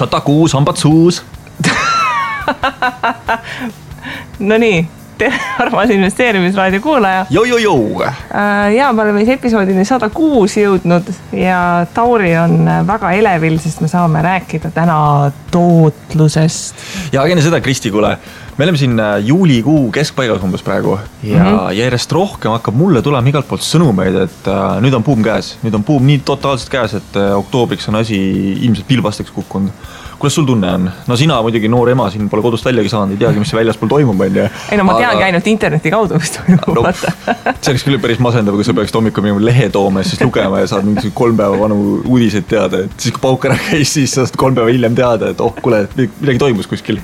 106 hambad suus. No nii, tere armas investeerimisraadio kuulaja. Ja me oleme episoodini 106 jõudnud ja Tauri on väga elevil, sest me saame rääkida täna tootlusest. Ja enne seda, Kristi, kuule, me oleme siin juulikuu keskpaigas umbes praegu ja järjest rohkem hakkab mulle tulema igalt poolt sõnumeid, et nüüd on buum käes. Nüüd on buum nii totaalselt käes, et oktoobriks on asi ilmselt pilbasteks kukkunud. Kuidas sul tunne on? No sina muidugi noor ema siin pole kodust väljagi saanud, ei teagi, mis see väljaspool toimub. Ei no ma teangi ainult interneti kaudu, mis toimub. No, see oleks küll päris masendav, kui sa peaksid hommikul mingi lehe tooma ja siis lugema ja saad mingi 3 päeva vanu uudiseid teada. Et siis kui pauk ära käis, siis saad 3 päeva hiljem teada, et kuule, midagi toimus kuskil.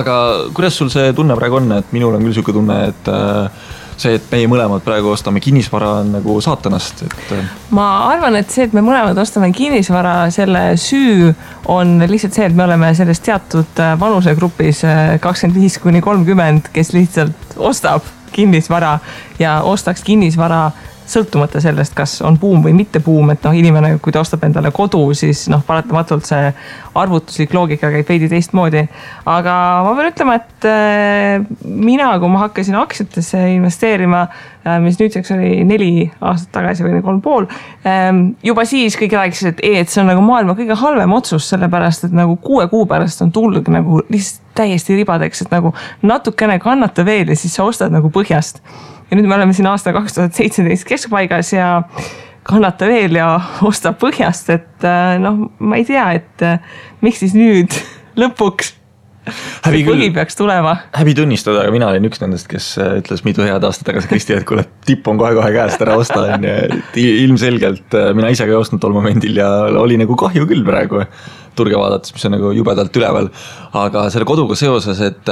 Aga kuidas sul see tunne praegu on? Et minul on küll selline tunne, et see, et meie mõlemad praegu ostame kinnisvara on nagu saatanast. Ma arvan, et see, et me mõlemad ostame kinnisvara, selle süü on lihtsalt see, et me oleme selles teatud vanusegrupis 25-30, kes lihtsalt ostab kinnisvara ja ostaks kinnisvara sõltumata sellest, kas on buum või mitte buum, et inimene, kui ta ostab endale kodu, siis paratamatult see arvutuslik loogika käib veidi teistmoodi. Aga ma pean ütlema, et mina, kui ma hakkasin aktsiatesse investeerima, mis nüüdseks oli 4 aastat tagasi või 3,5, juba siis kõik rääkisid, et see on nagu maailma kõige halvem otsus, sellepärast, et nagu 6 kuu pärast on tulnud nagu lihtsalt täiesti ribadeks, et nagu natukene kannata veel ja siis sa ostad nagu põhjast. Ja nüüd me oleme siin aasta 2017 keskpaigas ja kannata veel ja osta põhjast, et ma ei tea, et miks siis nüüd lõpuks põhi peaks tulema. Häbi tunnistada, aga mina olin üks nendest, kes ütles mitu head aastat tagasi Kristi, et kuule, tipp on kohe käest ära osta. Ilmselgelt mina ise ka ei ostnud tol momendil ja oli nagu kahju küll praegu turge vaadates, mis on nagu jubedalt üleval. Aga selle koduga seoses, et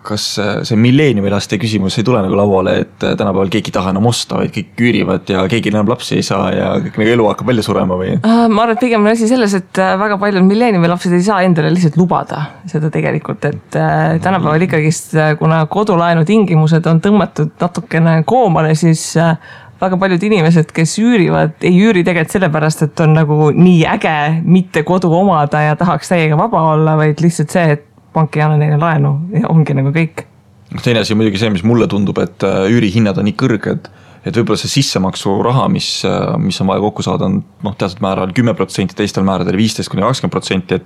kas see milleeniumilaste küsimus ei tule nagu lauale, et tänapäeval keegi taha enam osta, vaid kõik küürivad ja keegi enam lapsi ei saa ja kõik nagu elu hakkab välja surema või? Ma arvan, et pigem on asi selles, et väga paljud milleeniumilapsed ei saa endale lihtsalt lubada seda tegelikult, et tänapäeval ikkagist, kuna kodulaenu tingimused on tõmmatud natukene koomale, siis väga paljud inimesed, kes üürivad, ei üüri tegelikult sellepärast, et on nagu nii äge mitte kodu omada ja tahaks täiega vaba olla, vaid lihtsalt see, et pank ei anna neile laenu ja ongi nagu kõik. Teine asi on muidugi see, mis mulle tundub, et üürihinnad on nii kõrged, et võib-olla see sissemaksu raha, mis on vaja kokku saada, on teatud määral 10%, teistel määradel 15-20%, et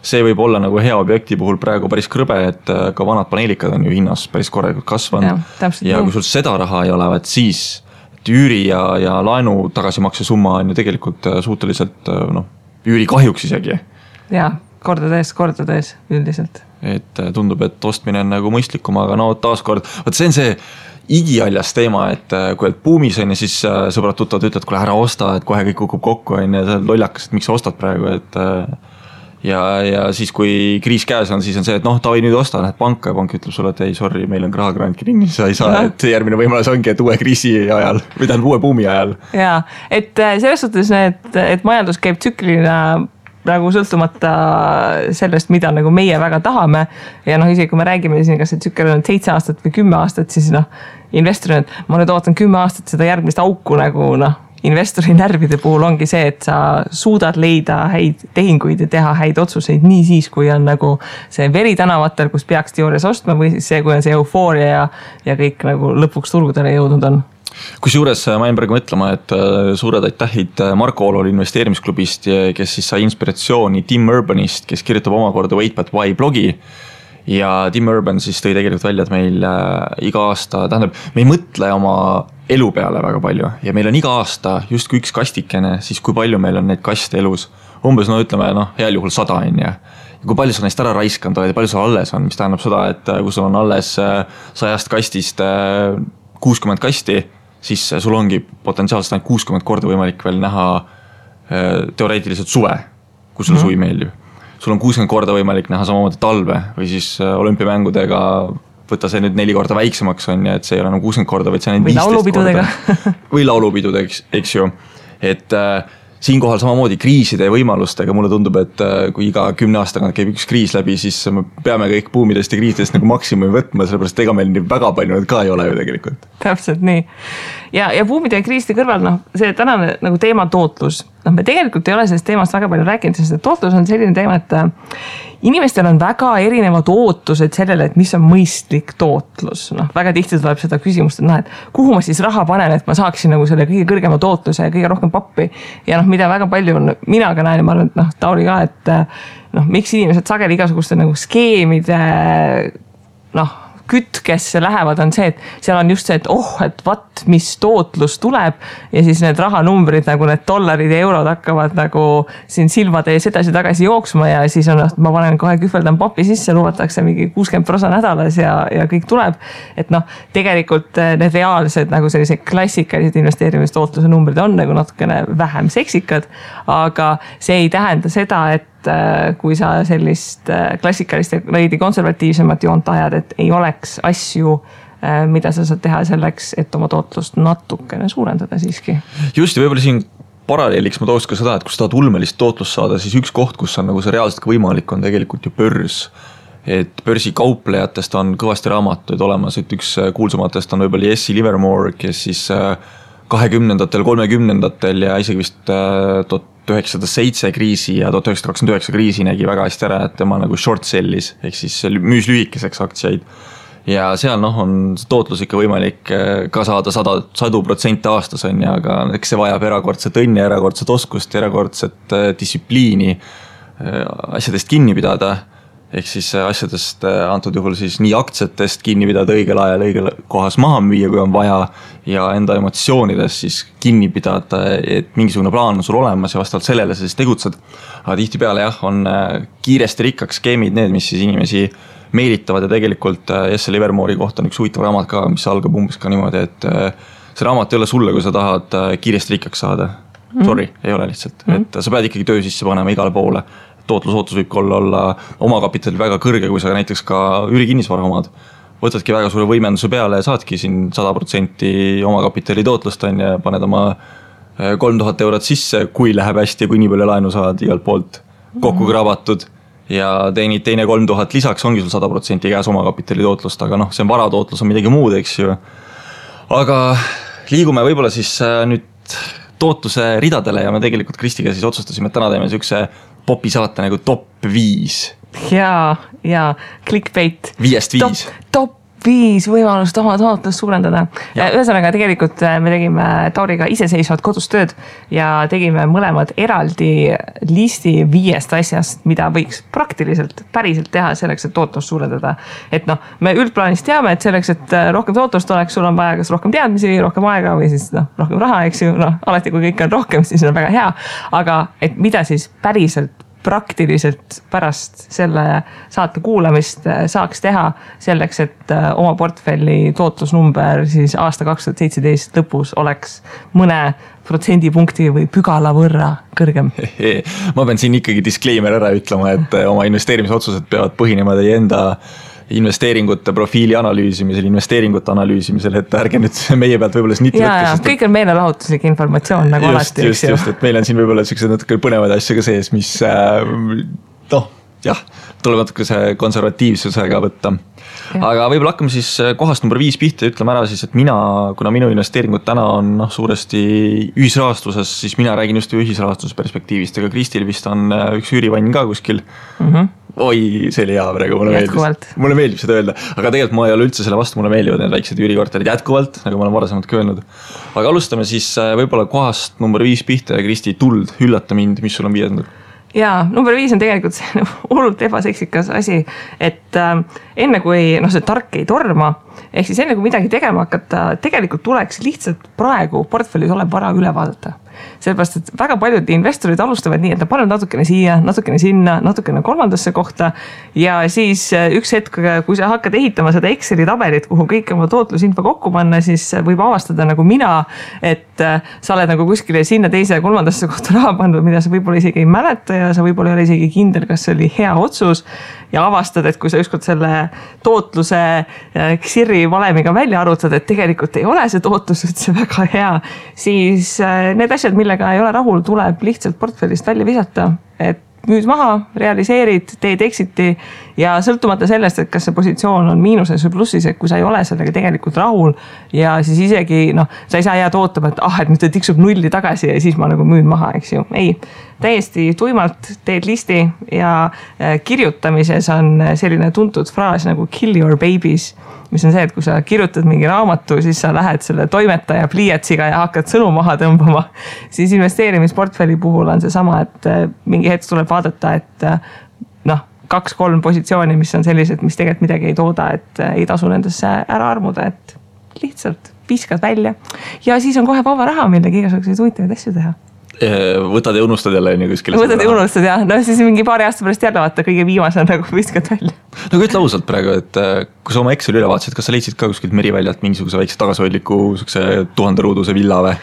see võib olla nagu hea objekti puhul praegu päris krõbe, et ka vanad paneelikad on ju hinnas päris korralikult kasvanud ja kui sul seda raha ei ole, siis üüri ja laenu tagasimakse summa on ju tegelikult suhteliselt üüri kahjuks isegi. Ja, kordades üldiselt. Et tundub, et ostmine on nagu mõistlikum, aga taaskord, see on see igialjas teema, et kui oled buumis on ja siis sõbrad tuttavad ütlevad, kuule ära osta, et kohe kõik kukub kokku on ja see on lollakas, et miks sa ostad praegu, et ja siis kui kriis käes on, siis on see, et Taavi nüüd osta, lähed panka ja pank ütleb sulle, et ei, sorry, meil on rahakrant kinni, sa ei saa, et järgmine võimalus ongi, et uue kriisi ajal või tähendab uue buumi ajal. Jaa, et selles suhtes, et majandus käib tsüklina nagu sõltumata sellest, mida nagu meie väga tahame ja isegi kui me räägime siin, kas see tsükkel on 7 aastat või 10 aastat, siis investorina, et ma nüüd ootan 10 aastat seda järgmist auku nagu investori närvide puhul ongi see, et sa suudad leida häid tehinguid ja teha häid otsuseid nii siis, kui on nagu see veri tänavatel, kus peaks teoorias ostma või siis see, kui on see eufooria ja kõik nagu lõpuks turgudele jõudnud on. Kusjuures ma jäin praegu mõtlema, et suured aitähid Marko Olol investeerimisklubist, kes siis sai inspiratsiooni Tim Urbanist, kes kirjutab omakorda Wait But Why blogi. Ja Tim Urban siis tõi tegelikult välja, et meil iga aasta, tähendab, me ei mõtle oma elu peale väga palju ja meil on iga aasta justkui üks kastikene, siis kui palju meil on neid kaste elus. Umbes, ütleme, heal juhul 100 on ja kui palju sa neist ära raiskanud oled ja palju sul alles on, mis tähendab seda, et kui sul on alles 100 kastist 60 kasti, siis sul ongi potentsiaalselt ainult 60 korda võimalik veel näha teoreetiliselt suve, kui sulle suvi meeldib. Sul on 60 korda võimalik näha samamoodi talve või siis olümpiamängudega võtta see nüüd 4 korda väiksemaks on ja et see ei ole enam 60 korda, vaid see on 15 korda. Või laulupidudega, eks ju. Et siinkohal samamoodi kriiside ja võimalustega mulle tundub, et kui iga 10 aastaga käib üks kriis läbi, siis me peame kõik buumidest ja kriisidest nagu maksimumi võtma, sellepärast ega meil nii väga palju need ka ei ole ju tegelikult. Täpselt nii. Ja buumide ja kriiside kõrval, see tänane nagu teema tootlus, me tegelikult ei ole sellest teemast väga palju rääkinud, sest tootlus on selline teema, et inimestel on väga erinevad ootused sellele, et mis on mõistlik tootlus. Väga tihti tuleb seda küsimust, et kuhu ma siis raha panen, et ma saaksin nagu selle kõige kõrgema tootluse ja kõige rohkem pappi. Ja mida väga palju on, mina ka näen, ma arvan, et Tauri ka, et miks inimesed sageli igasuguste nagu skeemide kütkesse lähevad, on see, et seal on just see, et vaat, mis tootlus tuleb ja siis need rahanumbrid, nagu need dollarid ja eurod hakkavad nagu siin silmade ees edasi-tagasi jooksma ja siis on, ma panen kohe kühveldan papi sisse, lubatakse mingi 60% nädalas ja kõik tuleb. Et tegelikult need reaalsed nagu sellised klassikalised investeerimistootluse numbrid on nagu natukene vähem seksikad, aga see ei tähenda seda, et kui sa sellist klassikalist ja veidi konservatiivsemat joont ajad, et ei oleks asju, mida sa saad teha selleks, et oma tootlust natukene suurendada siiski. Just ja võib-olla siin paralleeliks ma tooks ka seda, et kui sa tahad ulmelist tootlust saada, siis üks koht, kus on nagu see reaalselt võimalik, on tegelikult ju börs. Et börsi kauplejatest on kõvasti raamatuid olemas, et üks kuulsumatest on võib-olla Jesse Livermore, kes siis 20-ndatel, 30-ndatel ja isegi vist 1907 kriisi ja 1929 kriisi nägi väga hästi ära, et tema nagu short sellis, ehk siis müüs lühikeseks aktsiaid. Ja seal on tootlus ikka võimalik ka saada 100% aastas on ja, aga eks see vajab erakordset õnne, erakordset oskust, erakordset distsipliini asjadest kinni pidada. Ehk siis asjadest antud juhul siis nii aktsiatest kinni pidada õigel ajal, õigel kohas maha müüa, kui on vaja ja enda emotsioonidest siis kinni pidada, et mingisugune plaan on sul olemas ja vastavalt sellele sa siis tegutsed. Aga tihtipeale on kiiresti rikkaks skeemid need, mis siis inimesi meelitavad ja tegelikult Jesse Livermore'i kohta on üks huvitav raamat ka, mis algab umbes ka niimoodi, et see raamat ei ole sulle, kui sa tahad kiiresti rikkaks saada. Sorry, ei ole lihtsalt. Et sa pead ikkagi töö sisse panema igale poole. Tootlusootus võib olla omakapital väga kõrge, kui sa näiteks ka üürikinnisvara omad. Võtadki väga suure võimenduse peale ja saadki siin 100% omakapitali tootlust on ja paned oma 3000 eurot sisse, kui läheb hästi ja kui nii palju laenu saad igalt poolt kokku krabatud ja teenid teine 3000 lisaks, ongi sul 100% käes omakapitali tootlust, aga see on varatootlus on midagi muud, eks ju. Aga liigume võib-olla siis nüüd tootluse ridadele ja me tegelikult Kristiga siis otsustasime, et täna teeme sükse popi saate nagu top 5. Ja clickbait. 5-5. Top 5 võimalust oma tootlust suurendada. Ühesõnaga tegelikult me tegime Tauriga iseseisvad kodus tööd ja tegime mõlemad eraldi listi 5 asjast, mida võiks praktiliselt päriselt teha selleks, et tootlust suurendada. Et me üldplaanis teame, et selleks, et rohkem tootlust oleks, sul on vaja kas rohkem teadmisi, rohkem aega või siis rohkem raha, eks ju. Alati kui kõik on rohkem, siis on väga hea. Aga et mida siis päriselt praktiliselt pärast selle saate kuulamist saaks teha selleks, et oma portfelli tootlusnumber siis aasta 2017 lõpus oleks mõne protsendipunkti või pügala võrra kõrgem. Ma pean siin ikkagi disclaimer ära ütlema, et oma investeerimisotsused peavad põhinema teie enda investeeringute profiili analüüsimisel, investeeringute analüüsimisel, et ärge nüüd meie pealt võib-olla sniti võtkes. Kõik on meelelahutuslik informatsioon nagu alati. Just, et meil on siin võib-olla sellised natuke põnevad asju ka sees, mis tuleb natuke see konservatiivsusega võtta. Aga võib-olla hakkame siis kohast number 5 pihta ja ütleme ära siis, et kuna minu investeeringud täna on suuresti ühisrahastuses, siis mina räägin just ühisrahastuse perspektiivist, aga Kristil vist on üks üürivann ka kuskil. Oi, see oli hea praegu, mulle meeldib seda öelda, aga tegelikult ma ei ole üldse selle vastu, mulle meeldivad need väiksed üürikorterid jätkuvalt, nagu ma olen varasemalt ka öelnud. Aga alustame siis võib-olla kohast number 5 pihta ja Kristi, tuld, üllata mind, mis sul on 5. Ja number 5 on tegelikult see hullult ebaseksikas asi, et enne kui see tark ei torma, ehk siis enne kui midagi tegema hakata, tegelikult tuleks lihtsalt praegu portfellis olev vara üle vaadata. Sellepärast, et väga paljud investorid alustavad nii, et nad panevad natukene siia, natukene sinna, natukene kolmandasse kohta ja siis üks hetk, kui sa hakkad ehitama seda Exceli tabelit, kuhu kõik oma tootlusinfo kokku panna, siis võib avastada nagu mina, et sa oled nagu kuskile sinna teise ja kolmandasse kohta raha pandud, mida sa võib-olla isegi ei mäleta ja sa võib-olla ei ole isegi kindel, kas see oli hea otsus ja avastad, et kui sa ükskord selle tootluse XIRi valemiga välja arvutad, et tegelikult ei ole see tootlus üldse väga hea, siis need asjad, millega ei ole rahul, tuleb lihtsalt portfellist välja visata, et müüd maha, realiseerid, teed exit'i ja sõltumata sellest, et kas see positsioon on miinuses või plussis, et kui sa ei ole sellega tegelikult rahul ja siis isegi sa ei saa jääda ootama, et nüüd ta tiksub nulli tagasi ja siis ma nagu müün maha, eks ju. Ei, täiesti tuimalt teed listi ja kirjutamises on selline tuntud fraas nagu kill your babies, mis on see, et kui sa kirjutad mingi raamatu, siis sa lähed selle toimetaja pliiatsiga ja hakkad sõnu maha tõmbama. Siis investeerimisportfelli puhul on see sama, et mingi hetk tuleb vaadata, et 2-3 positsiooni, mis on sellised, mis tegelikult midagi ei tooda, et ei tasu nendesse ära armuda, et lihtsalt viskad välja. Ja siis on kohe vaba raha, millega igasuguseid huvitavaid asju teha. Võtad ja unustad jälle kuskile. Võtad ja unustad ja siis mingi paari aasta pärast jälle vaata kõige viimase nagu viskad välja. Ütle ausalt praegu, et kui sa oma Exceli üle vaatasid, kas sa leidsid ka kuskilt Meriväljalt mingisuguse väikse tagasihoidliku 1000 ruuduse villa või?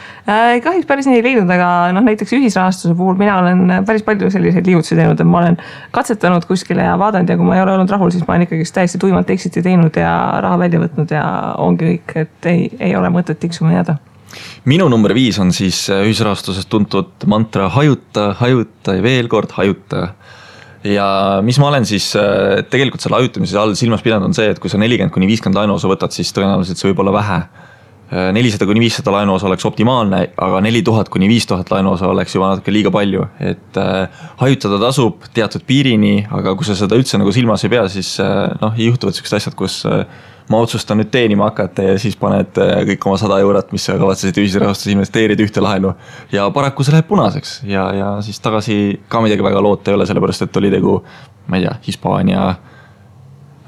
Kahjuks päris nii ei leidnud, aga näiteks ühisrahastuse puhul mina olen päris palju selliseid liigutusi teinud, et ma olen katsetanud kuskile ja vaadanud ja kui ma ei ole olnud rahul, siis ma olen ikkagi täiesti tuimalt exit'i teinud ja raha välja võtnud ja ongi kõik, et ei ole mõtet tiksuma jääda. Minu number 5 on siis ühisrahastusest tuntud mantra hajuta ja veel kord hajuta. Ja mis ma olen siis tegelikult selle hajutamise all silmas pidanud on see, et kui sa 40-50 laenuosa võtad, siis tõenäoliselt see võib olla vähe. 400-500 laenuosa oleks optimaalne, aga 4000-5000 laenuosa oleks juba natuke liiga palju. Et hajutada tasub teatud piirini, aga kui sa seda üldse nagu silmas ei pea, siis juhtuvad sellised asjad, kus ma otsustan nüüd teenima hakata ja siis paned kõik oma 100 eurot, mis sa kavatsesid ühisrahastus investeerida ühte laenu ja paraku see läheb punaseks ja siis tagasi ka midagi väga loota ei ole, sellepärast et oli tegu, ma ei tea, Hispaania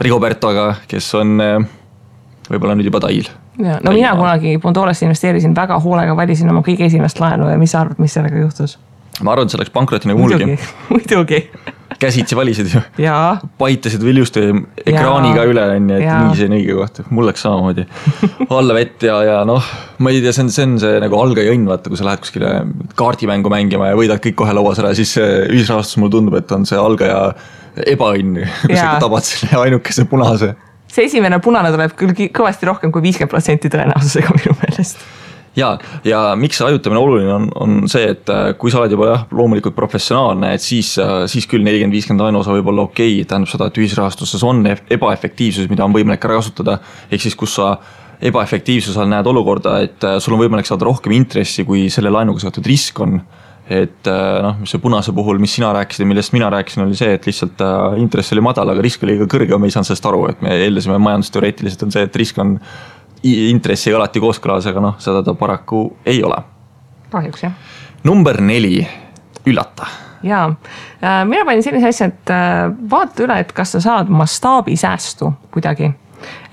Rigobertoga, kes on võib-olla nüüd juba tail. Ja, mina kunagi Bondoresse investeerisin väga hoolega, valisin oma kõige esimest laenu ja mis sa arvad, mis sellega juhtus? Ma arvan, et see läks pankroti nagu mulgi. Muidugi. Käsitsi valisid ju. Jaa. Paitasid viljusti ekraaniga üle, et nii see on õige koht. Mul läks samamoodi alla vett ja ma ei tea, see on see nagu algaja õnn, vaata, kui sa lähed kuskile kaardimängu mängima ja võidad kõik kohe lauas ära, siis ühisrahastus mulle tundub, et on see algaja ebaõnn, kui sa tabad selle ainukese punase. See esimene punane tuleb küll kõvasti rohkem kui 50% tõenäosusega minu meelest. Ja miks see hajutamine oluline on see, et kui sa oled juba loomulikult professionaalne, et siis küll 40-50 laenuosa võib olla okei, tähendab seda, et ühisrahastuses on ebaefektiivsus, mida on võimalik ära kasutada, ehk siis kus sa ebaefektiivsusel näed olukorda, et sul on võimalik saada rohkem intressi, kui selle laenuga seotud risk on. Et see punase puhul, mis sina rääkisid ja millest mina rääkisin, oli see, et lihtsalt intress oli madal, aga risk oli ka kõrge, me ei saanud sellest aru, et me eeldasime majandusteoreetiliselt on see, et risk on intressiga alati kooskõlas, aga seda ta paraku ei ole. Kahjuks, jah. Number 4, üllata. Jaa, mina panin sellise asja, et vaata üle, et kas sa saad mastaabi säästu kuidagi.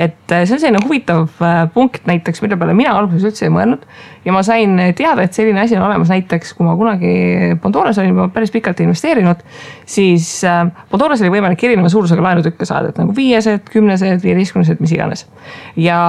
Et see on selline huvitav punkt näiteks, mille peale mina alguses üldse ei mõelnud ja ma sain teada, et selline asi on olemas näiteks, kui ma kunagi Bondores olin päris pikalt investeerinud, siis Bondores oli võimalik erineva suurusega laenutükke saada, et nagu 5, 10, 15, mis iganes. Ja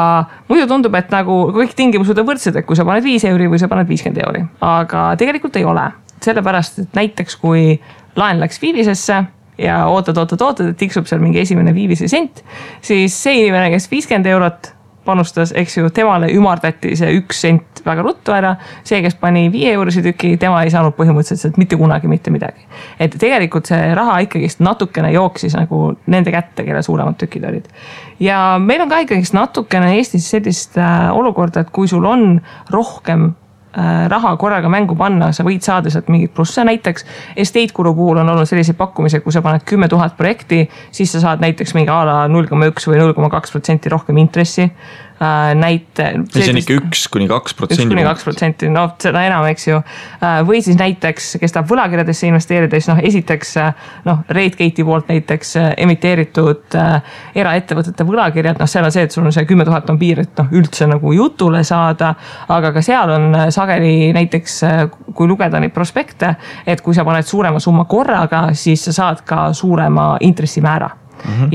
muidu tundub, et nagu kõik tingimused on võrdsed, et kui sa paned 5 euri või sa paned 50 euri, aga tegelikult ei ole. Sellepärast, et näiteks kui laen läks viivisesse ja ootad, et tiksub seal mingi esimene viivise sent, siis see inimene, kes 50 eurot panustas, eks ju, temale ümardati see 1 sent väga ruttu ära, see, kes pani 5 eurisi tüki, tema ei saanud põhimõtteliselt mitte kunagi mitte midagi. Et tegelikult see raha ikkagist natukene jooksis nagu nende kätte, kelle suuremad tükid olid. Ja meil on ka ikkagist natukene Eestis sellist olukorda, et kui sul on rohkem raha korraga mängu panna, sa võid saada sealt mingit plusse, näiteks Estate Guru puhul on olnud sellised pakkumised, kui sa paned 10 000 projekti, siis sa saad näiteks mingi ala 0,1 või 0,2% rohkem intressi. See on ikka 1-2%. 1-2%, seda enam, eks ju. Või siis näiteks, kes tahab võlakirjadesse investeerida, siis esiteks RateGate'i poolt näiteks emiteeritud eraettevõtete võlakirjad, seal on see, et sul on see 10 000 on piir, et üldse nagu jutule saada, aga ka seal on sageli näiteks, kui lugeda neid prospekte, et kui sa paned suurema summa korraga, siis sa saad ka suurema intressimäära.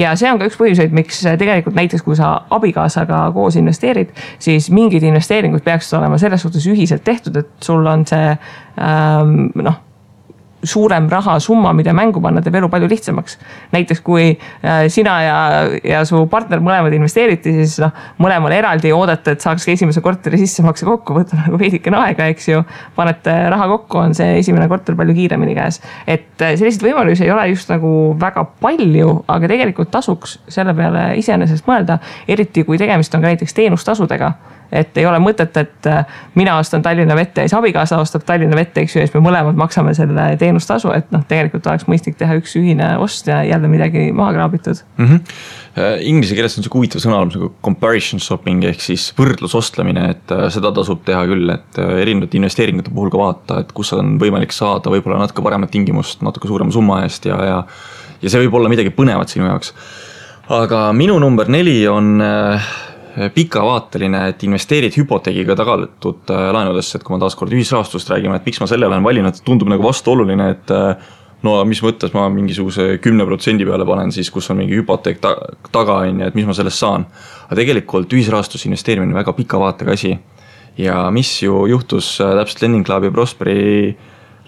Ja see on ka üks põhjuseid, miks tegelikult näiteks kui sa abikaasaga koos investeerid, siis mingid investeeringud peaksid olema selles suhtes ühiselt tehtud, et sul on see suurem rahasumma, mida mängu panna, teeb elu palju lihtsamaks. Näiteks kui sina ja su partner mõlemad investeeriti, siis mõlemal eraldi oodata, et saaks esimese korteri sissemakse kokku, võtta nagu veidikene aega, eks ju, panete raha kokku, on see esimene korter palju kiiremini käes. Et selliseid võimalusi ei ole just nagu väga palju, aga tegelikult tasuks selle peale iseenesest mõelda, eriti kui tegemist on ka näiteks teenustasudega. Et ei ole mõtet, et mina ostan Tallinna Vette ja siis abikaasa ostab Tallinna Vette, eks ju, ja siis me mõlemad maksame selle teenustasu, et tegelikult oleks mõistlik teha üks ühine ost ja jälle midagi maha kraabitud. Inglise keeles on see huvitav sõnaalus nagu comparison shopping ehk siis võrdlusostlemine, et seda tasub teha küll, et erinevate investeeringute puhul ka vaata, et kus on võimalik saada võib-olla natuke paremat tingimust, natuke suurema summa eest ja see võib olla midagi põnevat sinu jaoks. Aga minu number 4 on pikavaateline, et investeerid hüpoteegiga tagatud laenudesse, et kui ma taaskord ühisrahastust räägime, et miks ma selle olen valinud, tundub nagu vastuoluline, et no mis mõttes ma mingisuguse 10% peale panen siis, kus on mingi hüpoteek taga, et mis ma sellest saan. Aga tegelikult ühisrahastus investeerimine on väga pika vaatega asi. Ja mis ju juhtus täpselt Lending Club ja Prosperi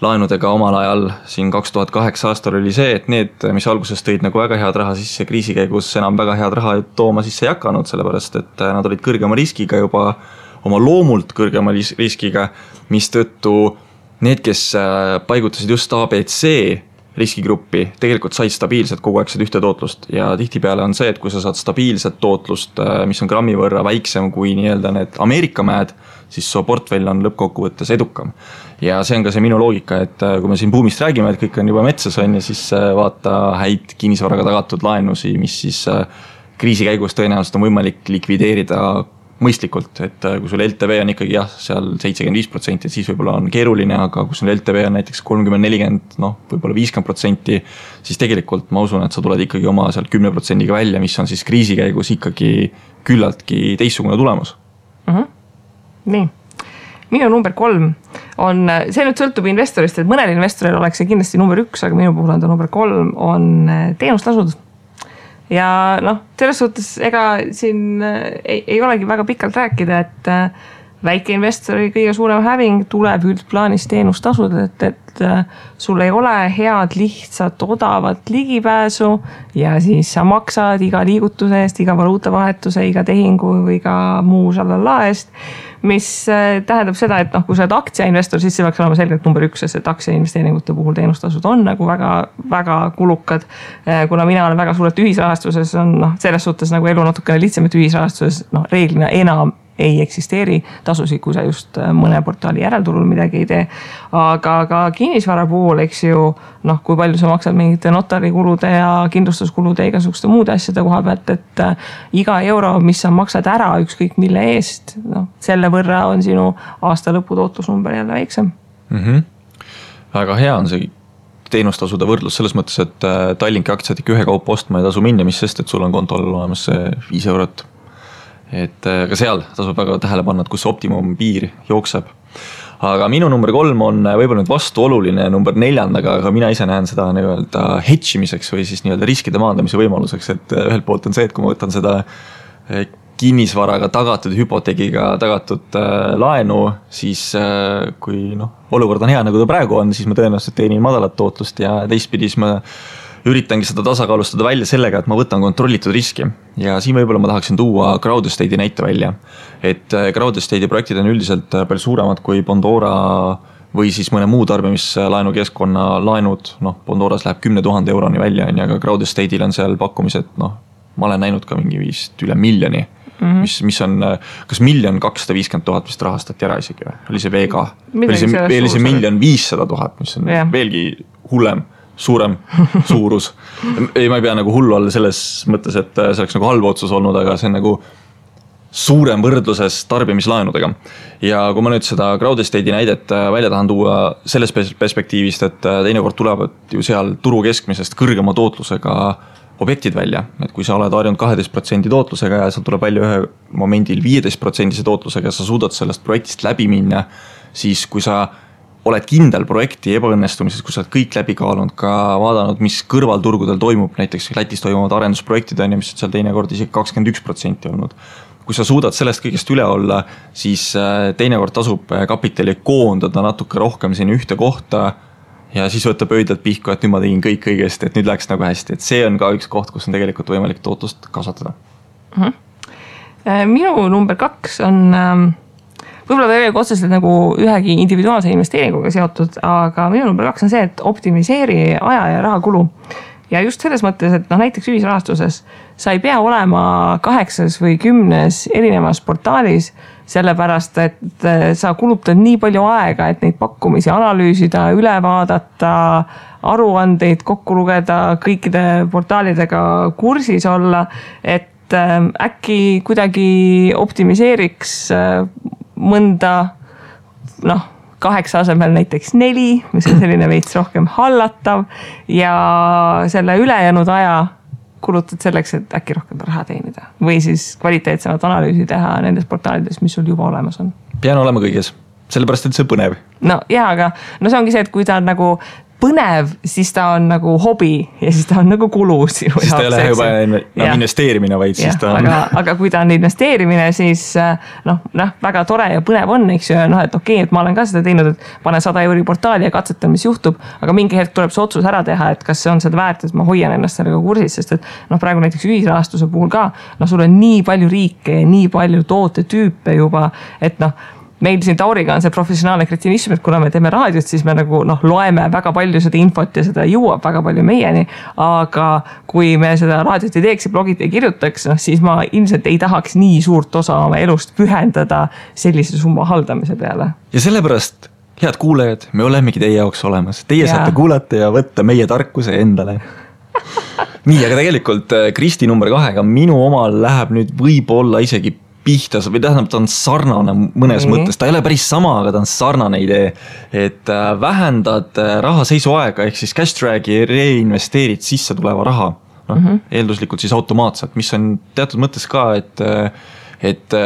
laenudega omal ajal siin 2008 aastal oli see, et need, mis alguses tõid nagu väga head raha sisse kriisi käigus, enam väga head raha tooma sisse ei hakanud, sellepärast et nad olid kõrgema riskiga juba oma loomult kõrgema riskiga, mis tõttu need, kes paigutasid just ABC riskigruppi, tegelikult said stabiilselt kogu aeg seda ühte tootlust ja tihtipeale on see, et kui sa saad stabiilset tootlust, mis on grammi võrra väiksem kui nii-öelda need Ameerika mäed, siis su portfell on lõppkokkuvõttes edukam. Ja see on ka see minu loogika, et kui me siin buumist räägime, et kõik on juba metsas on ja siis vaata häid kinnisvaraga tagatud laenusi, mis siis kriisi käigus tõenäoliselt on võimalik likvideerida mõistlikult, et kui sul LTV on ikkagi seal 75%, siis võib-olla on keeruline, aga kui sul LTV on näiteks 30-40, võib-olla 50%, siis tegelikult ma usun, et sa tuled ikkagi oma seal 10%-ga välja, mis on siis kriisi käigus ikkagi küllaltki teistsugune tulemus. Nii, minu number 3 on, see nüüd sõltub investorist, et mõnel investoril oleks see kindlasti number 1, aga minu puhul on ta number 3, on teenustasud. Ja selles suhtes ega siin ei olegi väga pikalt rääkida, et väikeinvestori kõige suurem häving tuleb üldplaanis teenustasud, et sul ei ole head, lihtsat, odavat ligipääsu ja siis sa maksad iga liigutuse eest, iga valuutavahetuse, iga tehingu või iga muu šalala eest, mis tähendab seda, et kui sa oled aktsiainvestor, siis see peaks olema selgelt number 1, sest aktsiainvesteeringute puhul teenustasud on nagu väga, väga kulukad. Kuna mina olen väga suurelt ühisrahastuses, on selles suhtes nagu elu natukene lihtsam, et ühisrahastuses reeglina enam ei eksisteeri tasusid, kui sa just mõne portaali järelturul midagi ei tee. Aga ka kinnisvara puhul, eks ju, kui palju sa maksad mingite notarikulude ja kindlustuskulude ja igasuguste muude asjade koha pealt, et iga euro, mis sa maksad ära ükskõik mille eest, selle võrra on sinu aasta lõpu tootlusnumber jälle väiksem. Väga hea on see teenustasude võrdlus selles mõttes, et Tallinki aktsiad ikka ühe kaupa ostma ei tasu minna, mis sest, et sul on kontol olemas see 5 eurot. Et ka seal tasub väga tähele panna, et kus optimum piir jookseb. Aga minu number 3 on võib-olla nüüd vastuoluline number 4, aga mina ise näen seda nii-öelda hedžimiseks või siis nii-öelda riskide maandamise võimaluseks, et ühelt poolt on see, et kui ma võtan seda kinnisvaraga tagatud, hüpoteegiga tagatud laenu, siis kui olukord on hea, nagu ta praegu on, siis ma tõenäoliselt teenin madalat tootlust ja teistpidis ma üritangi seda tasakaalustada välja sellega, et ma võtan kontrollitud riski. Ja siin võib-olla ma tahaksin tuua Crowd Estate'i näite välja. Et Crowd Estate'i projektid on üldiselt palju suuremad kui Bondora või siis mõne muu tarbimislaenu keskkonna laenud. Bondoras läheb 10 000 euroni välja, aga Crowd Estate'il on seal pakkumised, ma olen näinud ka mingi vist üle miljoni. Mis on, kas 1 250 000 vist rahastati ära isegi või? Oli see VK? Oli see 1 500 000, mis on veelgi hullem. Suurem suurus. Ma ei pea nagu hullu olla selles mõttes, et see oleks nagu halb otsus olnud, aga see on nagu suurem võrdluses tarbimislaenudega. Ja kui ma nüüd seda Crowd Estate'i näidet välja tahan tuua selles perspektiivist, et teinekord tulevad ju seal turu keskmisest kõrgema tootlusega objektid välja. Et kui sa oled harjunud 12% tootlusega ja sa tuleb välja ühe momendil 15% tootlusega ja sa suudad sellest projektist läbi minna, siis kui sa oled kindel projekti ebaõnnestumises, kui sa oled kõik läbi kaalunud, ka vaadanud, mis kõrvalturgudel toimub, näiteks Lätis toimuvad arendusprojektid, mis on seal teinekord isegi 21% olnud. Kui sa suudad sellest kõigest üle olla, siis teinekord tasub kapitali koondada natuke rohkem sinna ühte kohta ja siis võtab öödelt pihku, et nüüd ma tegin kõik õigesti, et nüüd läks nagu hästi, et see on ka üks koht, kus on tegelikult võimalik tootlust kasvatada. Minu number 2 on võib-olla ta ei ole otseselt nagu ühegi individuaalse investeeringuga seotud, aga minu number 2 on see, et optimiseeri aja ja raha kulu. Ja just selles mõttes, et näiteks ühisrahastuses sa ei pea olema 8 või 10 erinevas portaalis, sellepärast, et sa kulutad nii palju aega, et neid pakkumisi analüüsida, üle vaadata, aruandeid kokku lugeda, kõikide portaalidega kursis olla, et äkki kuidagi optimiseeriks mõnda 8 asemel näiteks 4, mis on selline veits rohkem hallatav ja selle ülejäänud aja kulutad selleks, et äkki rohkem raha teenida või siis kvaliteetsemat analüüsi teha nendes portaalides, mis sul juba olemas on. Pean olema kõiges, sellepärast, et see on põnev. No jaa, aga see ongi see, et kui ta on nagu põnev, siis ta on nagu hobi ja siis ta on nagu kulu sinu jaoks. Siis ta ei ole juba investeerimine, vaid siis ta on... Aga kui ta on investeerimine, siis väga tore ja põnev on, eks ju, et okei, et ma olen ka seda teinud, et panen 100 € portaali ja katsetan, mis juhtub, aga mingi hetk tuleb see otsus ära teha, et kas see on seda väärt, et ma hoian ennast sellega kursis, sest et praegu näiteks ühisrahastuse puhul ka, sul on nii palju riike ja nii palju tootetüüpe juba, et meil siin Tauriga on see professionaalne kretinism, et kuna me teeme raadiot, siis me nagu loeme väga palju seda infot ja seda jõuab väga palju meieni, aga kui me seda raadiot ei teeks ja blogid ei kirjutaks, siis ma ilmselt ei tahaks nii suurt osa oma elust pühendada sellise summa haldamise peale. Ja sellepärast, head kuulajad, me olemegi teie jaoks olemas. Teie saate kuulata ja võtta meie tarkuse endale. Nii, aga tegelikult Kristi number 2, minu omal läheb nüüd võib-olla isegi pihtas või tähendab, ta on sarnane mõnes mõttes, ta ei ole päris sama, aga ta on sarnane idee, et vähendad raha seisuaega ehk siis cash drag'i reinvesteerid sisse tuleva raha, eelduslikult siis automaatselt, mis on teatud mõttes ka, et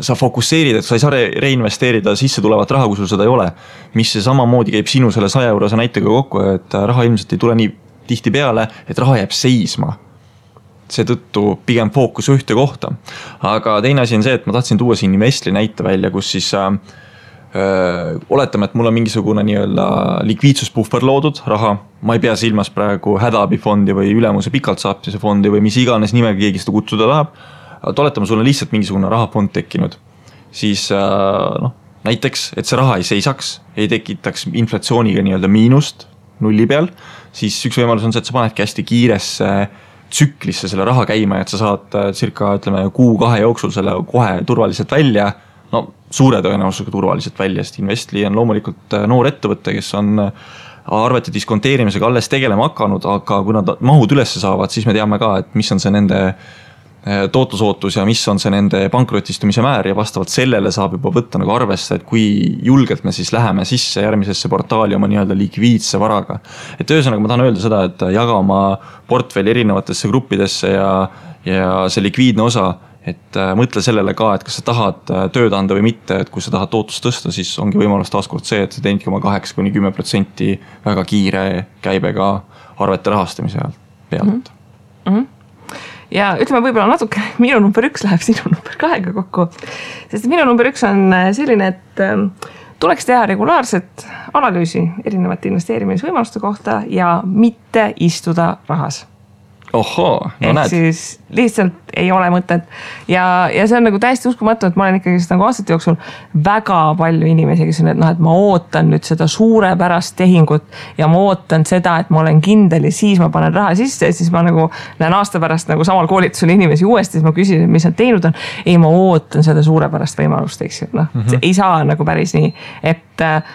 sa fokusseerid, et sa ei saa reinvesteerida sisse tulevat raha, kui sul seda ei ole, mis see samamoodi käib sinu selle 100 € näitega kokku, et raha ilmselt ei tule nii tihti peale, et raha jääb seisma. Seetõttu pigem fookus ühte kohta. Aga teine asi on see, et ma tahtsin tuua siin Investli näite välja, kus siis oletame, et mul on mingisugune nii-öelda likviidsuspuhver loodud raha. Ma ei pea silmas praegu hädaabifondi või ülemuse pikalt saaptise fondi või mis iganes nimega keegi seda kutsuda tahab. Oletame, sul on lihtsalt mingisugune rahafond tekkinud. Siis näiteks, et see raha ei seisaks, ei tekitaks inflatsiooniga nii-öelda miinust nulli peal, siis üks võimalus on see, et sa panedki hästi kiiresse tsüklisse selle raha käima, et sa saad circa, ütleme, 1-2 jooksul selle kohe turvaliselt välja, suure tõenäosusega turvaliselt välja, sest Investli on loomulikult noor ettevõte, kes on arvete diskonteerimisega alles tegelema hakanud, aga kui nad mahud üles saavad, siis me teame ka, et mis on see nende tootlusootus ja mis on see nende pankrotistumise määr ja vastavalt sellele saab juba võtta nagu arvesse, et kui julgelt me siis läheme sisse järgmisesse portaali oma nii-öelda likviidse varaga. Et ühesõnaga ma tahan öelda seda, et jaga oma portfelli erinevatesse gruppidesse ja see likviidne osa, et mõtle sellele ka, et kas sa tahad tööd anda või mitte, et kui sa tahad tootlust tõsta, siis ongi võimalus taaskord see, et sa teenidki oma 8-10% väga kiire käibega arvete rahastamise pealt. Ja ütleme võib-olla natuke, minu number 1 läheb sinu number 2 kokku, sest minu number 1 on selline, et tuleks teha regulaarset analüüsi erinevate investeerimisvõimaluste kohta ja mitte istuda rahas. Ohoo, näed. Siis lihtsalt ei ole mõtet ja see on nagu täiesti uskumatu, et ma olen ikkagi nagu aastate jooksul väga palju inimesi, kes on, et ma ootan nüüd seda suurepärast tehingut ja ma ootan seda, et ma olen kindel ja siis ma panen raha sisse ja siis ma nagu näen aasta pärast nagu samal koolitusel inimesi uuesti, siis ma küsin, mis nad teinud on. Ei, ma ootan seda suurepärast võimalust, eks ju. Ei saa nagu päris nii, et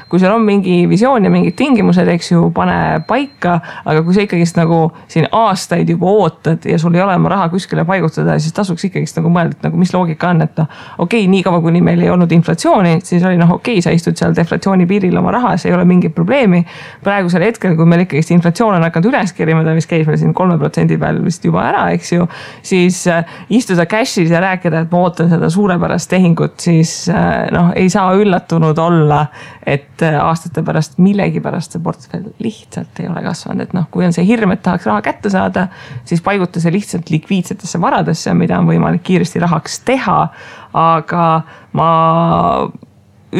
kui seal on mingi visioon ja mingid tingimused, eks ju, pane paika, aga kui sa ikkagi nagu siin aastaid juba ootad ja sul ei ole oma raha kuskile paigutada, siis tasuks ikkagi nagu mõelda, nagu mis loogika on, et okei, nii kaua kuni meil ei olnud inflatsiooni, siis oli okei, sa istud seal deflatsiooni piiril oma rahas, ei ole mingit probleemi. Praegusel hetkel, kui meil ikkagi inflatsioon on hakanud üles kerima, ta vist käis meil siin 3% peal vist juba ära, eks ju, siis istuda cash'is ja rääkida, et ma ootan seda suurepärast tehingut, siis ei saa üllatunud olla, et aastate pärast millegi pärast see portfell lihtsalt ei ole kasvanud, et kui on see hirm, et tahaks raha kätte saada, siis paiguta see lihtsalt likviidsetesse varadesse, mida on võimalik kiiresti rahaks teha, aga ma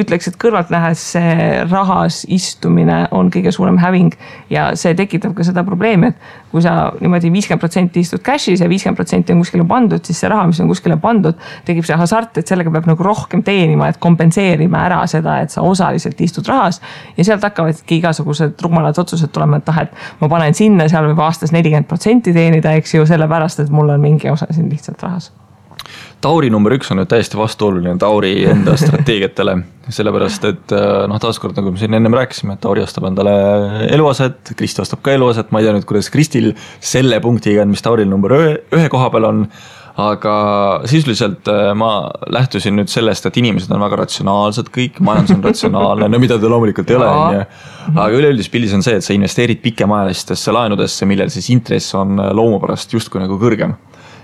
ütleks, et kõrvalt nähes see rahas istumine on kõige suurem häving ja see tekitab ka seda probleemi, et kui sa niimoodi 50% istud cash'is ja 50% on kuskile pandud, siis see raha, mis on kuskile pandud, tekib see hasart, et sellega peab nagu rohkem teenima, et kompenseerima ära seda, et sa osaliselt istud rahas ja sealt hakkavadki igasugused rumalad otsused tulema, et et ma panen sinna, seal võib aastas 40% teenida, eks ju, sellepärast, et mul on mingi osa siin lihtsalt rahas. Tauri number 1 on nüüd täiesti vastuoluline Tauri enda strateegiatele, sellepärast, et taaskord, nagu me siin ennem rääkisime, et Tauri ostab endale eluaset, Kristi ostab ka eluaset, ma ei tea nüüd, kuidas Kristil selle punktiga, mis Tauril number 1 koha peal on, aga sisuliselt ma lähtusin nüüd sellest, et inimesed on väga ratsionaalsed kõik, majandus on ratsionaalne, no mida ta loomulikult ei ole, aga üleüldis pildis on see, et sa investeerid pikemaajalistesse laenudesse, millel siis intress on loomupärast justkui nagu kõrgem.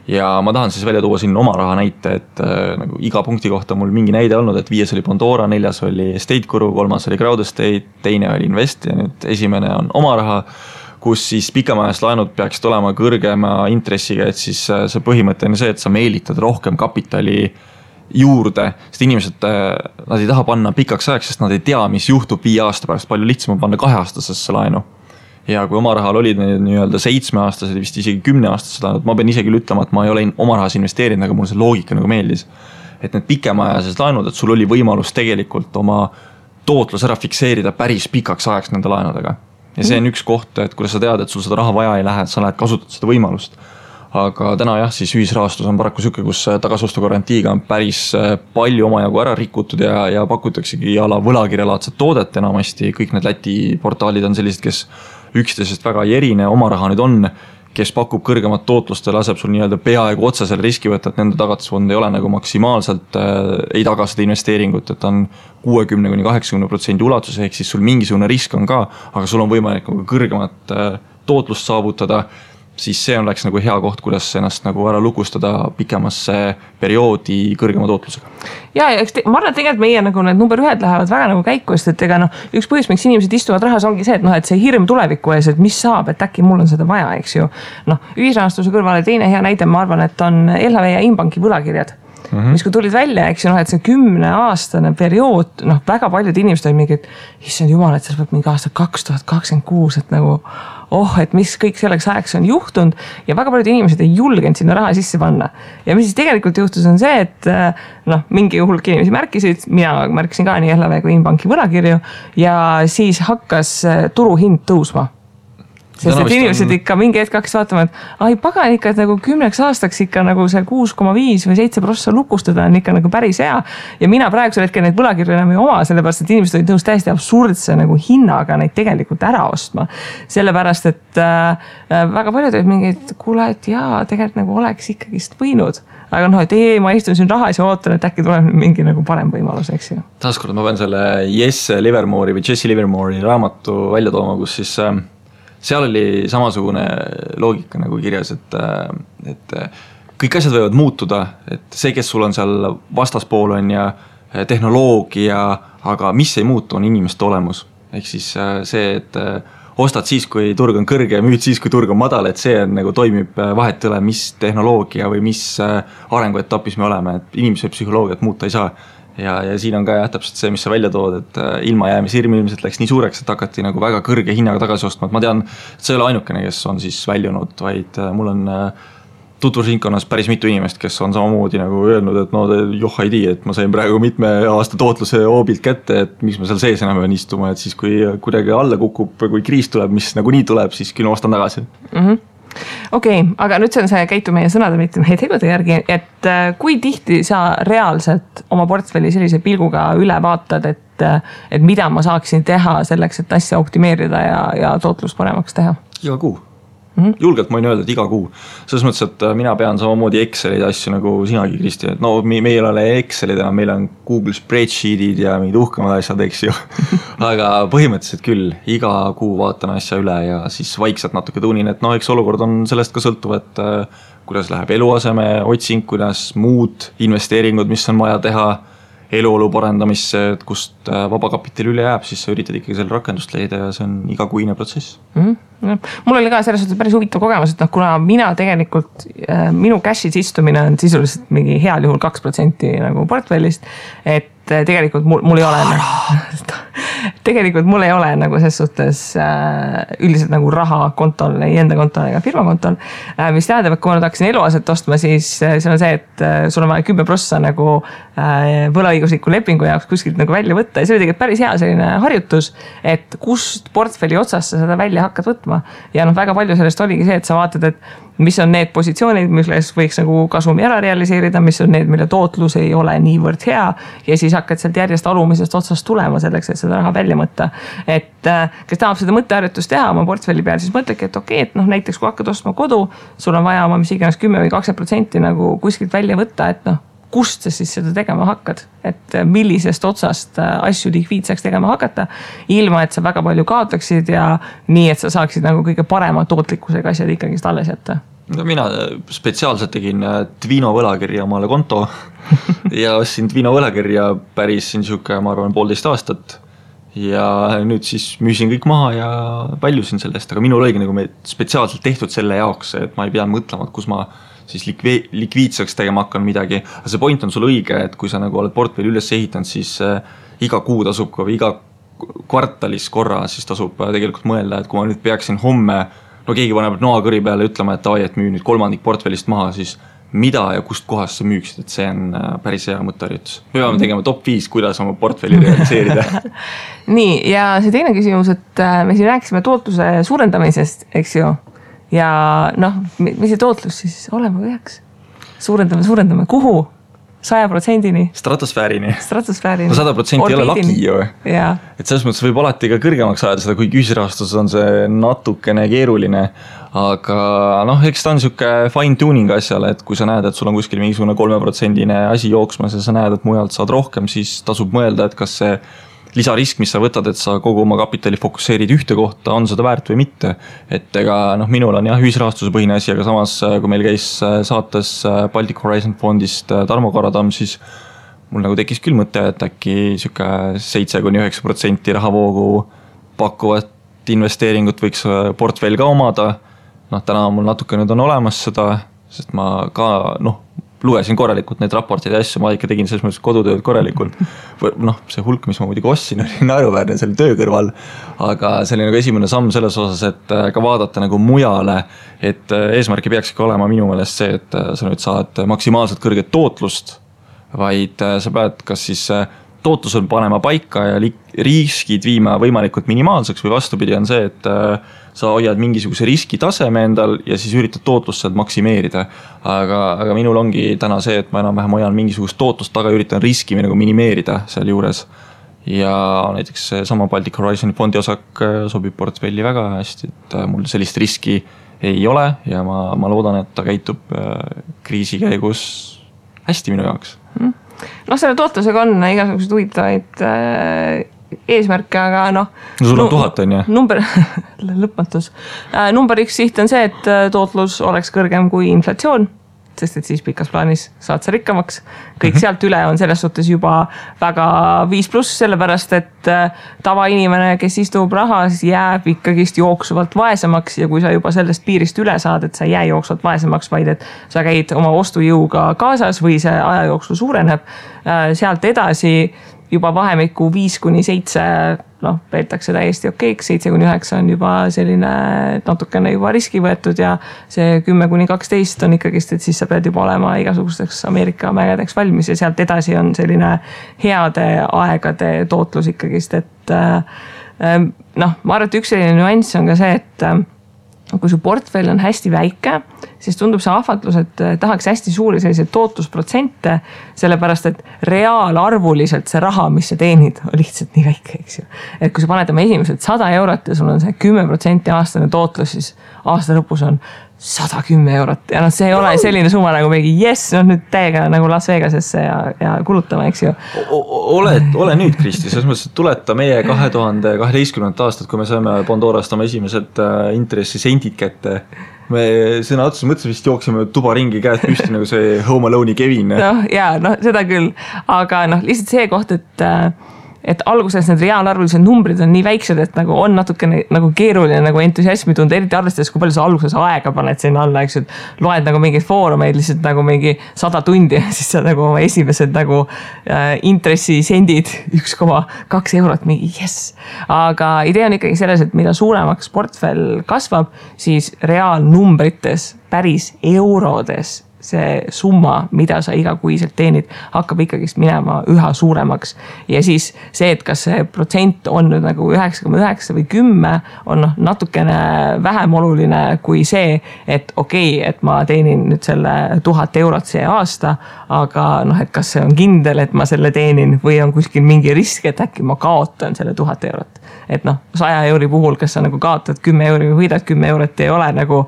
Ja ma tahan siis välja tuua siin oma raha näite, et nagu iga punkti kohta mul mingi näide olnud, et 5 oli Pandora, 4 oli Estate Guru, 3 oli Crowd Estate, 2 oli Invest ja nüüd esimene on oma raha, kus siis pikemaajalist laenud peaksid olema kõrgema intressiga, et siis see põhimõte on see, et sa meelitad rohkem kapitali juurde, sest inimesed, nad ei taha panna pikaks ajaks, sest nad ei tea, mis juhtub 5 aasta pärast, palju lihtsam on panna 2-aastasesse laenu. Ja kui oma rahal olid nii-öelda 7-aastased, vist isegi 10-aastased laenud, ma pean isegi ütlema, et ma ei ole oma rahas investeerinud, aga mul see loogika nagu meeldis. Et need pikemaajalised laenud, et sul oli võimalus tegelikult oma tootlus ära fikseerida päris pikaks ajaks nende laenudega. Ja see on üks koht, et kuidas sa tead, et sul seda raha vaja ei lähe, et sa lähed kasutad seda võimalust. Aga täna jah, siis ühisrahastus on paraku süke, kus tagasostu garantiiga on päris palju omajagu ära rikutud ja pakutaksegi ala võlakirjalaadset toodet enamasti. Kõik need Läti portaalid on sellised, kes üksteisest väga ei erine, oma raha nüüd on, kes pakub kõrgemat tootlust ja laseb sul nii-öelda peaaegu otsa selle riski võtta, et nende tagatisfond ei ole nagu maksimaalselt, ei taga seda investeeringut, et on 60-80% ulatus, ehk siis sul mingisugune risk on ka, aga sul on võimalik kõrgemat tootlust saavutada, siis see on läks nagu hea koht, kuidas ennast nagu ära lukustada pikemasse perioodi kõrgema tootlusega. Ja ma arvan, et tegelikult meie nagu need number 1 lähevad väga nagu käiku, et ega üks põhjus, miks inimesed istuvad rahas ongi see, et see hirm tuleviku ees, et mis saab, et äkki mul on seda vaja, eks ju. Ühisrahastuse kõrvale teine hea näide, ma arvan, et on LHV ja Inbanki võlakirjad. Mis kui tulid välja, eks ju, et see 10-aastane periood, väga paljud inimesed on mingi, et issand jumal, et see peab mingi aasta 2026, et nagu et mis kõik selleks ajaks on juhtunud ja väga paljud inimesed ei julgenud sinna raha sisse panna. Ja mis siis tegelikult juhtus on see, et mingi hulk inimesi märkisid, mina märkisin ka nii LHV kui Inbanki võlakirju ja siis hakkas turuhind tõusma. Sest et inimesed ikka mingi hetk hakkas vaatama, et ai pagan ikka, et nagu 10 aastaks ikka nagu see 6,5 või 7% lukustada on ikka nagu päris hea. Ja mina praegusel hetkel neid võlakirju enam ei oma, sellepärast et inimesed olid nõus täiesti absurdse nagu hinnaga neid tegelikult ära ostma. Sellepärast, et väga paljud olid mingid, kuule, et jaa, tegelikult nagu oleks ikkagist võinud. Aga et ma istun siin rahas ja ootan, et äkki tuleb mingi nagu parem võimalus, eks ju. Taaskord ma pean selle Jesse Livermore'i raamatu välja tooma, kus siis seal oli samasugune loogika nagu kirjas, et kõik asjad võivad muutuda, et see, kes sul on seal vastaspool on ja tehnoloogia, aga mis ei muutu, on inimeste olemus. Ehk siis see, et ostad siis, kui turg on kõrge ja müüd siis, kui turg on madal, et see on, nagu toimib vahet üle, mis tehnoloogia või mis arenguetapis me oleme, et inimese psühholoogiat muuta ei saa. Ja siin on ka täpselt see, mis sa välja tood, et ilmajäämishirm ilmselt läks nii suureks, et hakati nagu väga kõrge hinnaga tagasi ostma. Et ma tean, et see ei ole ainukene, kes on siis väljunud, vaid mul on tutvusringkonnas päris mitu inimest, kes on samamoodi nagu öelnud, et joh ei tii, et ma sain praegu mitme aasta tootluse hoobilt kätte, et miks ma seal sees enam pean istuma, et siis kui kuidagi alla kukub, kui kriis tuleb, mis nagu nii tuleb, siis küll ostan tagasi. Okei, aga nüüd see on see käitu meie sõnade, mitte meie tegude järgi, et kui tihti sa reaalselt oma portfelli sellise pilguga üle vaatad, et mida ma saaksin teha selleks, et asja optimeerida ja tootlust paremaks teha? Iga kuu. Julgelt ma võin öelda, et iga kuu. Selles mõttes, et mina pean samamoodi Excelid asju nagu sinagi, Kristi. Et meil ei ole Excelid, meil on Google Spreadsheetid ja mingid uhkemad asjad, eks ju. Aga põhimõtteliselt küll, iga kuu vaatan asja üle ja siis vaikselt natuke tuunin, et eks olukord on sellest ka sõltuv, et kuidas läheb eluaseme otsing, kuidas muud investeeringud, mis on vaja teha, eluolu parendamisse, et kust vabakapitali üle jääb, siis sa üritad ikkagi selle rakendust leida ja see on igakuine protsess. Mul oli ka selles suhtes päris huvitav kogemus, et kuna mina tegelikult, minu cash'is istumine on sisuliselt mingi heal juhul 2% nagu portfellist, et tegelikult mul ei ole tegelikult mul ei ole nagu ses suhtes üldiselt nagu raha kontol, ei enda kontol ega firma kontol, mis tähendab, et kui ma nüüd hakkasin eluaset ostma, siis see on see, et sul on vaja 10% nagu võlaõigusliku lepingu jaoks kuskilt nagu välja võtta ja see oli tegelikult päris hea selline harjutus, et kust portfelli otsast sa seda välja hakkad võtma ja väga palju sellest oligi see, et sa vaatad, et mis on need positsioonid, milles võiks nagu kasumi ära realiseerida, mis on need, mille tootlus ei ole niivõrd hea ja siis hakkad sealt järjest alumisest otsast tulema selleks, et seda raha välja mõtta. Et kes tahab seda mõtteharjutust teha oma portfelli peal, siis mõtlegi, et okei, et näiteks kui hakkad ostma kodu, sul on vaja oma mis iganes 10 või 20% nagu kuskilt välja võtta, et kust sa siis seda tegema hakkad, et millisest otsast asju likviidseks tegema hakata, ilma et sa väga palju kaotaksid ja nii, et sa saaksid nagu kõige parema tootlikkusega asjad ikkagi alles jätta. No mina spetsiaalselt tegin Twino võlakirja omale konto ja ostsin Twino võlakirja päris siuke, ma arvan, 1,5 aastat ja nüüd siis müüsin kõik maha ja väljusin sellest, aga minul oligi nagu spetsiaalselt tehtud selle jaoks, et ma ei pea mõtlema, et kus ma siis likviidseks tegema hakkan midagi, aga see point on sul õige, et kui sa nagu oled portfelli üles ehitanud, siis iga kuu tasub või iga kvartalis korra siis tasub tegelikult mõelda, et kui ma nüüd peaksin homme keegi paneb noakõri peale ütlema, et et müü nüüd 3% portfellist maha, siis mida ja kust kohast sa müüksid, et see on päris hea mõtteharjutus. Me peame tegema top 5, kuidas oma portfelli realiseerida. Nii, ja see teine küsimus, et me siin rääkisime tootluse suurendamisest, eks ju, ja mis see tootlus siis olema peaks? Suurendame, kuhu? 100%-ni. Stratosfäärini. No 100% ei ole laki ju. Ja. Et selles mõttes võib alati ka kõrgemaks ajada seda, kui ühisrahastuses on see natukene keeruline. Aga eks ta on siuke fine tuning asjale, et kui sa näed, et sul on kuskil mingisugune 3% asi jooksmas ja sa näed, et mujalt saad rohkem, siis tasub mõelda, et kas see lisarisk, mis sa võtad, et sa kogu oma kapitali fokusseerid ühte kohta, on seda väärt või mitte. Et ega minul on ühisrahastuse põhine asi, aga samas kui meil käis saates Baltic Horizon fondist Tarmo Karadamm, siis mul nagu tekkis küll mõte, et äkki siuke 7-9% rahavoogu pakkuvat investeeringut võiks portfell ka omada. Täna mul natuke nüüd on olemas seda, sest ma ka lugesin korralikult neid raporteid ja asju, ma ikka tegin selles mõttes kodutööd korralikult. See hulk, mis ma muidugi ostsin, oli naeruväärne selle töö kõrval, aga see oli nagu esimene samm selles osas, et ka vaadata nagu mujale, et eesmärk ei peakski olema minu meelest see, et sa nüüd saad maksimaalselt kõrget tootlust, vaid sa pead kas siis tootlusel panema paika ja riskid viima võimalikult minimaalseks või vastupidi on see, et sa hoiad mingisuguse riskitaseme endal ja siis üritad tootlust sealt maksimeerida. Aga minul ongi täna see, et ma enam-vähem hoian mingisugust tootlust taga ja üritan riski nagu minimeerida seal juures. Ja näiteks sama Baltic Horizon fondi osak sobib portfelli väga hästi, et mul sellist riski ei ole ja ma loodan, et ta käitub kriisi käigus hästi minu jaoks. Selle tootlusega on igasugused huvitavaid eesmärke, aga sul on 1000 on ju? Number, lõpmatus. Number 1 siht on see, et tootlus oleks kõrgem kui inflatsioon, sest et siis pikas plaanis saad sa rikkamaks. Kõik sealt üle on selles suhtes juba väga 5+, sellepärast, et tavainimene, kes istub rahas, jääb ikkagist jooksuvalt vaesemaks ja kui sa juba sellest piirist üle saad, et sa ei jää jooksvalt vaesemaks, vaid et sa käid oma ostujõuga kaasas või see ajajooksu suureneb, sealt edasi juba vahemikku 5-7 peetakse täiesti okeiks, 7-9 on juba selline natukene juba riski võetud ja see 10-12 on ikkagist, et siis sa pead juba olema igasugusteks Ameerika mägedeks valmis ja sealt edasi on selline heade aegade tootlus ikkagist, et ma arvan, et üks selline nüanss on ka see, et kui su portfell on hästi väike, siis tundub see ahvatlus, et tahaks hästi suuri selliseid tootlusprotsente, sellepärast, et reaalarvuliselt see raha, mis sa teenid, on lihtsalt nii väike, eks ju. Et kui sa paned oma esimesed 100 eurot ja sul on see 10% aastane tootlus, siis aasta lõpus on 110 eurot ja see ei ole selline summa nagu mingi nüüd täiega nagu Las Vegasesse ja kulutama, eks ju. Ole nüüd, Kristi, selles mõttes, et tuleta meie 2012. aastat, kui me saime Pandorast oma esimesed intressisendid kätte. Me sõna otsus mõtlesime, vist jooksime tuba ringi käed püsti nagu see Home Alone'i Kevin. Seda küll, aga lihtsalt see koht, et et alguses need reaalarvulised numbrid on nii väiksed, et nagu on natukene nagu keeruline nagu entusiasmi tunda, eriti arvestades, kui palju sa alguses aega paned sinna alla, eks, et loed nagu mingeid foorumeid lihtsalt nagu mingi 100 tundi ja siis sa nagu oma esimesed nagu intressisendid 1,2 eurot, mingi jess. Aga idee on ikkagi selles, et mida suuremaks portfell kasvab, siis reaalnumbrites, päris eurodes see summa, mida sa igakuiselt teenid, hakkab ikkagist minema üha suuremaks. Ja siis see, et kas see protsent on nüüd nagu 9,9 või 10, on natukene vähem oluline kui see, et okei, et ma teenin nüüd selle 1000 eurot see aasta, aga et kas see on kindel, et ma selle teenin või on kuskil mingi risk, et äkki ma kaotan selle 1000 eurot. Et 100 euri puhul, kas sa nagu kaotad 10 euri või võidad 10 eurot, ei ole nagu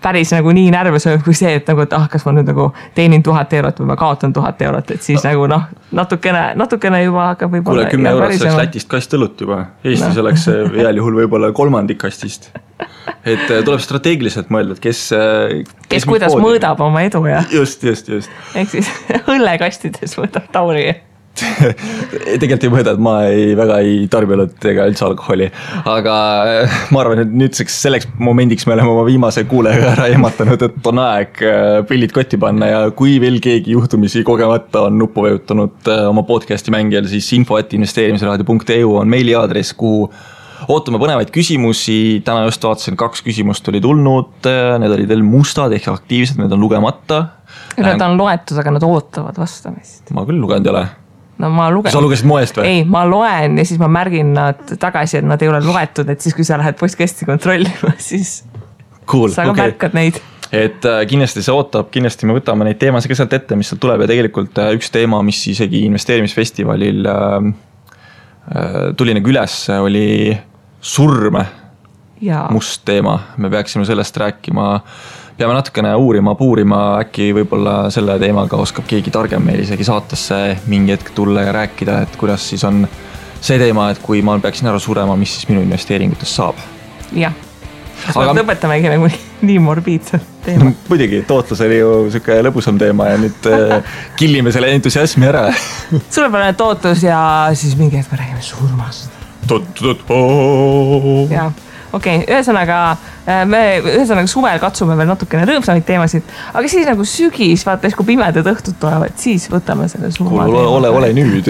päris nagu nii närvesööv kui see, et nagu, et kas ma nüüd nagu teenin 1000 eurot või ma kaotan 1000 eurot, et siis nagu natukene juba hakkab võib-olla. Kuule, 10 eurot selleks Lätist kast õlut juba. Eestis oleks heal juhul võib-olla kolmandik kastist. Et tuleb strateegiliselt mõelda, et kes kuidas mõõdab oma edu ja. Just. Ehk siis õllekastides mõõdab Tauri. Tegelikult ei mõõda, et ma väga ei tarbinud ega üldse alkoholi, aga ma arvan, et nüüdseks selleks momendiks me oleme oma viimase kuuleja ära ehmatanud, et on aeg pillid kotti panna ja kui veel keegi juhtumisi kogemata on nuppu vajutanud oma podcasti mängijal, siis info@investeerimisraadio.eu on meiliaadress, kuhu ootame põnevaid küsimusi. Täna just vaatasin 2 küsimust oli tulnud, need olid veel mustad ehk aktiivsed, need on lugemata. Need on loetud, aga nad ootavad vastamist. Ma küll lugenud ei ole. No ma lugen. Sa lugesid moest või? Ei, ma loen ja siis ma märgin nad tagasi, et nad ei ole loetud, et siis kui sa lähed postkasti kontrollima, siis cool, sa ka märkad neid. Et kindlasti see ootab, kindlasti me võtame neid teemasid ka sealt ette, mis sealt tuleb ja tegelikult üks teema, mis isegi investeerimisfestivalil tuli nagu üles, oli surme. Must teema, me peaksime sellest rääkima. Peame natukene puurima, äkki võib-olla selle teemaga oskab keegi targem meil isegi saatesse mingi hetk tulla ja rääkida, et kuidas siis on see teema, et kui ma peaksin ära surema, mis siis minu investeeringutest saab. Jah, kas me lõpetamegi nagu nii morbiidselt teema? Muidugi, tootlus oli ju selline lõbusam teema ja nüüd killime selle entusiasmi ära. Suurepärane tootlus ja siis mingi hetk me räägime surmast. Jah. Okei, ühesõnaga suvel katsume veel natukene rõõmsamaid teemasid, aga siis nagu sügis, vaata, kui pimedad õhtud tulevad, siis võtame selle surma teema. Ole nüüd.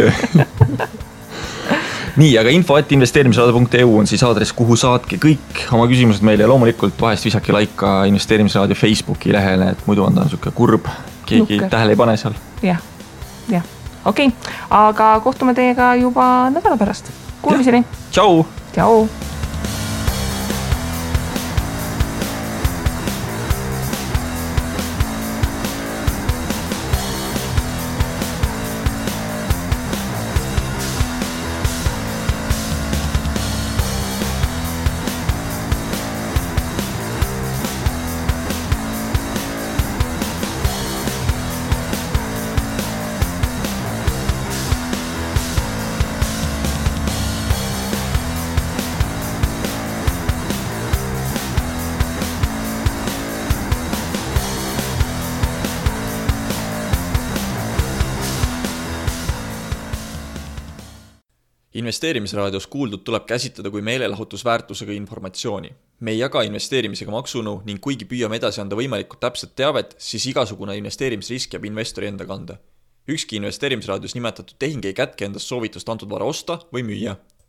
Nii, aga info@investeerimisraadio.eu on siis aadress, kuhu saatke kõik oma küsimused meile ja loomulikult vahest visake laika investeerimisraadio Facebooki lehele, et muidu on ta niisugune kurb, keegi tähele ei pane seal. Jah, okei, aga kohtume teiega juba nädala pärast. Kuulmiseni. Tšau. Investeerimisraadios kuuldud tuleb käsitleda kui meelelahutusväärtusega informatsiooni. Me ei jaga investeerimisega maksunu ning kuigi püüame edasi anda võimalikult täpset teavet, siis igasugune investeerimisrisk jääb investori enda kanda. Ükski investeerimisraadios nimetatud tehing ei kätke endast soovitust antud vara osta või müüa.